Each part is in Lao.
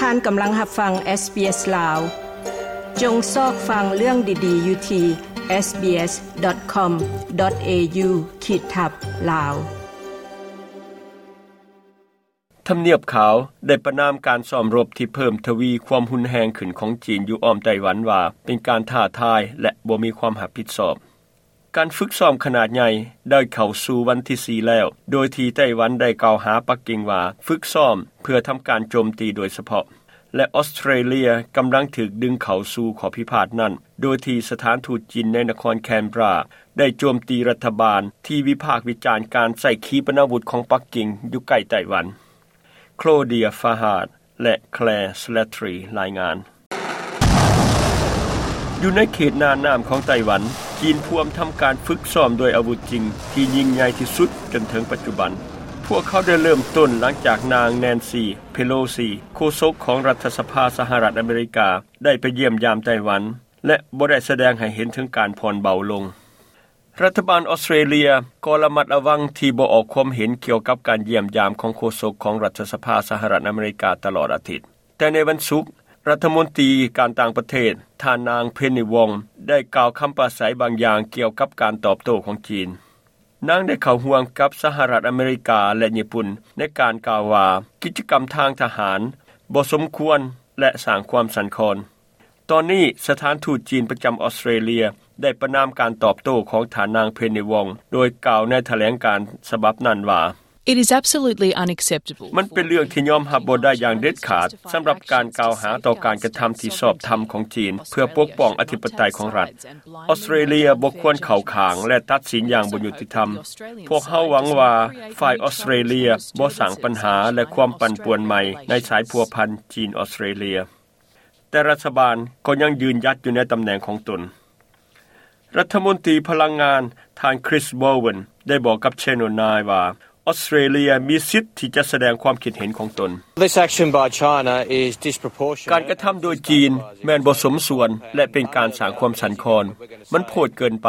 ທ່ານກຳລັງຮັບຟັງ SBS ລາວ. ຈົ່ງຊອກຟັງເລື່ອງດີໆຢູ່ທີ່ SBS.com.au ຂີດທັບ ລາວ. ທຳນຽບຂາວໄດ້ປະນາມການຊ້ອມລົບທີ່ເພີ່ມທະວີຄວາມຮຸນແຮງຂຶ້ນຂອງຈີນຢູ່ອ້ອມໄຕ້ຫວັນວ່າເປັນການທ້າທາຍ ແລະ ບໍ່ມີຄວາມຮັບຜິດຊອບ. ການຝຶກຊ້ອມຂະໜາດໃຫຍ່ໄດ້ເຂົ້າສູ່ວັນທີສີ່ແລ້ວ, ໂດຍທີ່ໄຕ້ຫວັນໄດ້ກ່າວຫາປັກກິ່ງວ່າຝຶກຊ້ອມເພື່ອທຳການໂຈມຕີໂດຍສະເພາະ ແລະ ອອສເຕຣເລຍກຳລັງຖືກດຶງເຂົ້າສູ່ຂໍ້ພິພາດນັ້ນ, ໂດຍທີ່ສະຖານທູດຈີນໃນນະຄອນແຄນເບຣາໄດ້ໂຈມຕີລັດຖະບານທີ່ວິພາກວິຈານການໃຊ້ຂີປະນາວຸດຂອງປັກກິ່ງຢູ່ໃກ້ໄຕ້ຫວັນ. ໂຄລເດຍ ຟາຮາດ ແລະ ແຄລ ສະແລັດທຣີ ລາຍງານ. ຢູ່ໃນເຂດໜ້ານ້ຳຂອງໄຕ້ຫວັນ, ຈີນພວມທຳການຝຶກຊ້ອມດ້ວຍອາວຸດຈິງທີ່ຍິ່ງໃຫຍ່ທີ່ສຸດຈົນເຖິງປັດຈຸບັນ. ພວກເຂົາໄດ້ເລີ່ມຕົ້ນຫຼັງຈາກນາງ ແນນຊີ ເພໂລຊີ ໂຄສົກຂອງລັດຖະສະພາສະຫະລັດອາເມລິກາ ໄດ້ໄປຢ້ຽມຢາມໄຕ້ຫວັນ ແລະ ບໍ່ໄດ້ສະແດງໃຫ້ເຫັນເຖິງການຜ່ອນເບົາລົງ. ລັດຖະບານອອສເຕຣເລຍກໍລະມັດລະວັງທີ່ບໍ່ອອກຄວາມເຫັນກ່ຽວກັບການຢ້ຽມຢາມຂອງໂຄສົກຂອງລັດຖະສະພາສະຫະລັດອາເມລິກາຕະຫຼອດອາທິດ. ແຕ່ໃນວັນສຸກ, ລັດຖະມົນຕີການຕ່າງປະເທດ ທ່ານນາງ ເພນນີ ວອງ ໄດ້ກ່າວຄຳປາໄສບາງຢ່າງກ່ຽວກັບການຕອບໂຕ້ຂອງຈີນ. ນາງໄດ້ເຂົ້າຮ່ວມກັບສະຫະລັດອາເມລິກາ ແລະ ຍີ່ປຸ່ນ ໃນການກ່າວວ່າ ກິດຈະກຳທາງທະຫານບໍ່ສົມຄວນ ແລະ ສ້າງຄວາມສັ່ນຄອນ. ຕອນນີ້ສະຖານທູດຈີນປະຈຳອອສເຕຣເລຍໄດ້ປະນາມການຕອບໂຕ້ຂອງທ່ານນາງ ເພນນີ ວອງ ໂດຍກ່າວໃນຖະແຫຼງການສະບັບນັ້ນວ່າ It is absolutely unacceptable. ມັນເປັນເລື່ອງທີ່ຍອມຮັບບໍ່ໄດ້ຢ່າງເດັດຂາດ ສຳລັບການກ່າວຫາຕໍ່ການກະທຳທີ່ຊອບທຳຂອງຈີນ ເພື່ອປົກປ້ອງອະທິປະໄຕຂອງລັດ. ອອສເຕຣເລຍບໍ່ຄວນເຂົ້າຂ້າງ ແລະ ຕັດສິນຢ່າງບໍ່ຍຸຕິທຳ. ພວກເຮົາຫວັງວ່າຝ່າຍອອສເຕຣເລຍບໍ່ສ້າງບັນຫາ ແລະ ຄວາມປັ່ນປ່ວນໃໝ່ໃນສາຍພົວພັນຈີນອອສເຕຣເລຍ. ແຕ່ລັດຖະບານກໍຍັງຢືນຢັດຢູ່ໃນຕຳແໜ່ງຂອງຕົນ. ລັດຖະມົນຕີພະລັງງານ ທ່ານ ຄຣິສ ໂບເວັນ ໄດ້ບອກກັບ Channel Nine ວ່າ ອອສເຕຣເລຍມີສິດທີ່ຈະສະແດງຄວາມຄິດເຫັນຂອງຕົນ. This action by China is disproportionate. ການກະທຳໂດຍຈີນແມ່ນບໍ່ສົມສ່ວນ ແລະ ເປັນການສ້າງຄວາມສັ່ນຄອນ. ມັນໂພດເກີນໄປ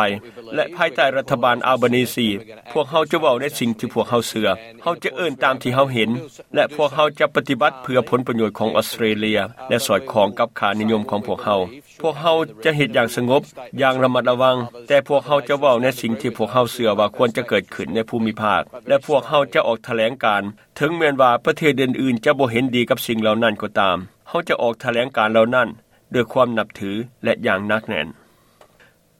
ແລະ ພາຍໃຕ້ລັດຖະບານອາລບານີຊີ ພວກເຮົາຈະເວົ້າໃນສິ່ງທີ່ພວກເຮົາເຊື່ອ. ເຮົາຈະເອີ້ນຕາມທີ່ເຮົາເຫັນ ແລະ ພວກເຮົາຈະປະຕິບັດເພື່ອຜົນປະໂຫຍດຂອງອອສເຕຣເລຍ ແລະ ສອດຄ່ອງກັບຄ່ານິຍົມຂອງພວກເຮົາ. ພວກເຮົາຈະເຮັດຢ່າງສະຫງົບ, ຢ່າງລະມັດລະວັງ, ແຕ່ພວກເຮົາຈະເວົ້າໃນສິ່ງທີ່ພວກເຮົາເຊື່ອວ່າຄວນຈະເກີດຂຶ້ນໃນພູມິພາກ ແລະ ພວກເຮົາຈະອອກຖະແຫຼງການ, ເຖິງແມ່ນວ່າປະເທດອື່ນໆຈະບໍ່ເຫັນດີກັບສິ່ງເຫຼົ່ານັ້ນກໍຕາມ. ເຮົາຈະອອກຖະແຫຼງການເຫຼົ່ານັ້ນດ້ວຍຄວາມນັບຖື ແລະ ຢ່າງໜັກແໜ້ນ.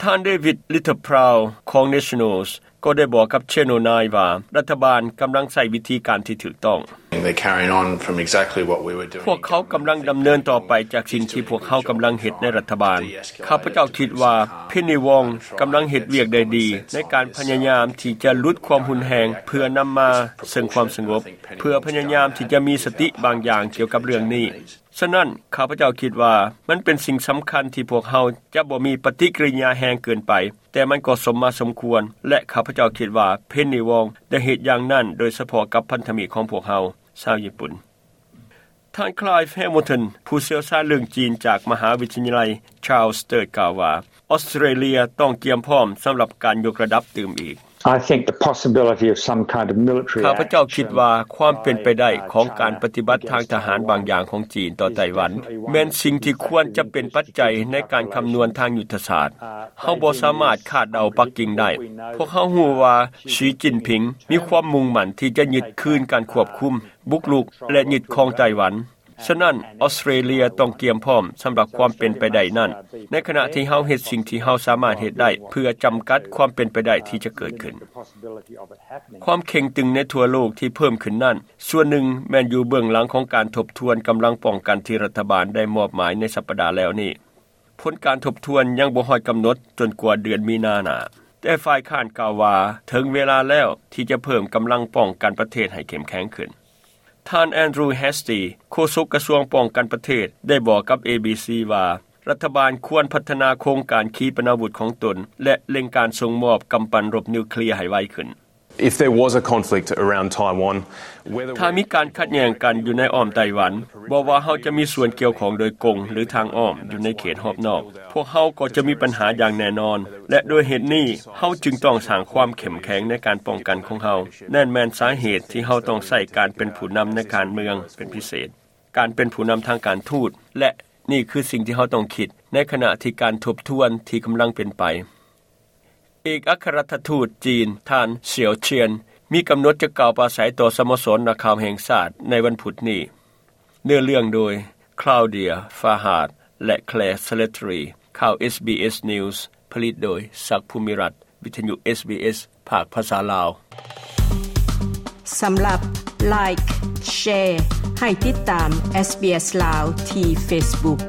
ທ່ານ ເດວິດ ລິດເທິລພຣາວ ຂອງ Nationals ກໍໄດ້ບອກກັບ Channel Nine ວ່າ ລັດຖະບານກຳລັງໃຊ້ວິທີການທີ່ຖືກຕ້ອງ. They're carrying on from exactly what we were doing. ພວກເຂົາກຳລັງດຳເນີນຕໍ່ໄປຈາກສິ່ງທີ່ພວກເຮົາກຳລັງເຮັດໃນລັດຖະບານ. ຂ້າພະເຈົ້າຄິດວ່າ ເພນນີ ວອງ ກຳລັງເຮັດວຽກໄດ້ດີໃນການພະຍາຍາມທີ່ຈະຫຼຸດຄວາມຮຸນແຮງ ເພື່ອນຳມາເຊິ່ງຄວາມສະຫງົບ, ເພື່ອພະຍາຍາມທີ່ຈະມີສະຕິບາງຢ່າງກ່ຽວກັບເລື່ອງນີ້. ສະນັ້ນ, ຂ້າພະເຈົ້າຄິດວ່າມັນເປັນສິ່ງສຳຄັນທີ່ພວກເຮົາຈະບໍ່ມີປະຕິກິລິຍາແຮງເກີນໄປ, ແຕ່ມັນກໍສົມມາສົມຄວນ, ແລະ ຂ້າພະເຈົ້າຄິດວ່າ ເພນນີ ວອງ ໄດ້ເຮັດຢ່າງນັ້ນໂດຍສະເພາະກັບພັນທະມິດຂອງພວກເຮົາ, ຊາວຍີ່ປຸ່ນ. ທ່ານ ຄລາຍ ແຮມເບິນຕັນ ຜູ້ຊ່ຽວຊານເລື່ອງຈີນຈາກມະຫາວິທະຍາໄລ Charles the Third ກ່າວວ່າ ອອສເຕຣເລຍຕ້ອງກຽມພ້ອມສຳລັບການຍົກລະດັບຕື່ມອີກ. I think the possibility of some kind of military ຂ້າພະເຈົ້າຄິດວ່າຄວາມເປັນໄປໄດ້ຂອງການປະຕິບັດທາງທະຫານບາງຢ່າງຂອງຈີນຕໍ່ໄຕ້ຫວັນ ແມ່ນສິ່ງທີ່ຄວນຈະເປັນປັດໄຈໃນການຄຳນວນທາງຍຸດທະສາດ. ເຮົາບໍ່ສາມາດຄາດເດົາປັກກິ່ງໄດ້. ພວກເຮົາຮູ້ວ່າ ສີຈິ້ນຜິງ ມີຄວາມມຸ່ງໝັ້ນທີ່ຈະຍຶດຄືນການຄວບຄຸມ, ບຸກລຸກ ແລະ ຍຶດຄອງໄຕ້ຫວັນ. ສະນັ້ນ, ອອສເຕຣເລຍຕ້ອງກຽມພ້ອມສຳລັບຄວາມເປັນໄປໄດ້ນັ້ນ, ໃນຂະນະທີ່ເຮົາເຮັດສິ່ງທີ່ເຮົາສາມາດເຮັດໄດ້ເພື່ອຈຳກັດຄວາມເປັນໄປໄດ້ທີ່ຈະເກີດຂຶ້ນ. ຄວາມເຄັ່ງຕຶງໃນທົ່ວໂລກທີ່ເພີ່ມຂຶ້ນນັ້ນ, ສ່ວນໜຶ່ງແມ່ນຢູ່ເບື້ອງຫຼັງຂອງການທົບທວນກຳລັງປ້ອງກັນທີ່ລັດຖະບານໄດ້ມອບໝາຍໃນສັບປະດາແລ້ວນີ້. ຜົນການທົບທວນຍັງບໍ່ຮອດກຳນົດຈົນກວ່າເດືອນມີນາໜ້າ. ແຕ່ຝ່າຍຄ້ານກ່າວວ່າ ເຖິງເວລາແລ້ວທີ່ຈະເພີ່ມກຳລັງປ້ອງກັນປະເທດໃຫ້ເຂັ້ມແຂງຂຶ້ນ. ທ່ານ ແອນດຣູ ແຮສຕີ ໂຄສົກກະຊວງປ້ອງກັນປະເທດ ໄດ້ບອກກັບ ເອບີຊີ ວ່າ ລັດຖະບານຄວນພັດທະນາໂຄງການຂີປະນາວຸດຂອງຕົນ ແລະ ເລັ່ງການສົ່ງມອບກຳປັ່ນລົບນິວເຄລຍໃຫ້ໄວຂຶ້ນ. If there was a conflict around Taiwan, whether ຖ້າມີການຂັດແຍ່ງກັນຢູ່ໃນອ້ອມໄຕ້ຫວັນ, ບໍ່ວ່າເຮົາຈະມີສ່ວນກ່ຽວຂ້ອງໂດຍກົງ ຫຼື ທາງອ້ອມຢູ່ໃນເຂດຮອບນອກ, ພວກເຮົາກໍຈະມີບັນຫາຢ່າງແນ່ນອນ, ແລະ ດ້ວຍເຫດນີ້, ເຮົາຈຶ່ງຕ້ອງສ້າງຄວາມເຂັ້ມແຂງໃນການປ້ອງກັນຂອງເຮົາ. ນັ້ນແມ່ນສາເຫດທີ່ເຮົາຕ້ອງໃຊ້ການເປັນຜູ້ນຳໃນການເມືອງເປັນພິເສດ. ການເປັນຜູ້ນຳທາງການທູດ ແລະ ນີ້ຄືສິ່ງທີ່ເຮົາຕ້ອງຄິດ ໃນຂະນະທີ່ການທົບທວນທີ່ກຳລັງເປັນໄປ. ເອກອັຄລັດຖະທູດຈີນ ທ່ານ ເສຽວເຊຍນ ມີກຳນົດຈະກ່າວປາໄສຕໍ່ສະໂມສອນນັກຂ່າວແຫ່ງຊາດໃນວັນພຸດນີ້. ເນື້ອເລື່ອງໂດຍ Claudia Farhad ແລະ Claire Slattery. ຂ່າວ ເອສບີເອສ News ຜະລິດໂດຍ ສັກ ພູມິລັດ, ວິທະຍຸ ເອສບີເອສ ພາກພາສາລາວ. ສຳລັບ Like, Share ໃຫ້ຕິດຕາມ SBS ລາວ ທີ່ Facebook.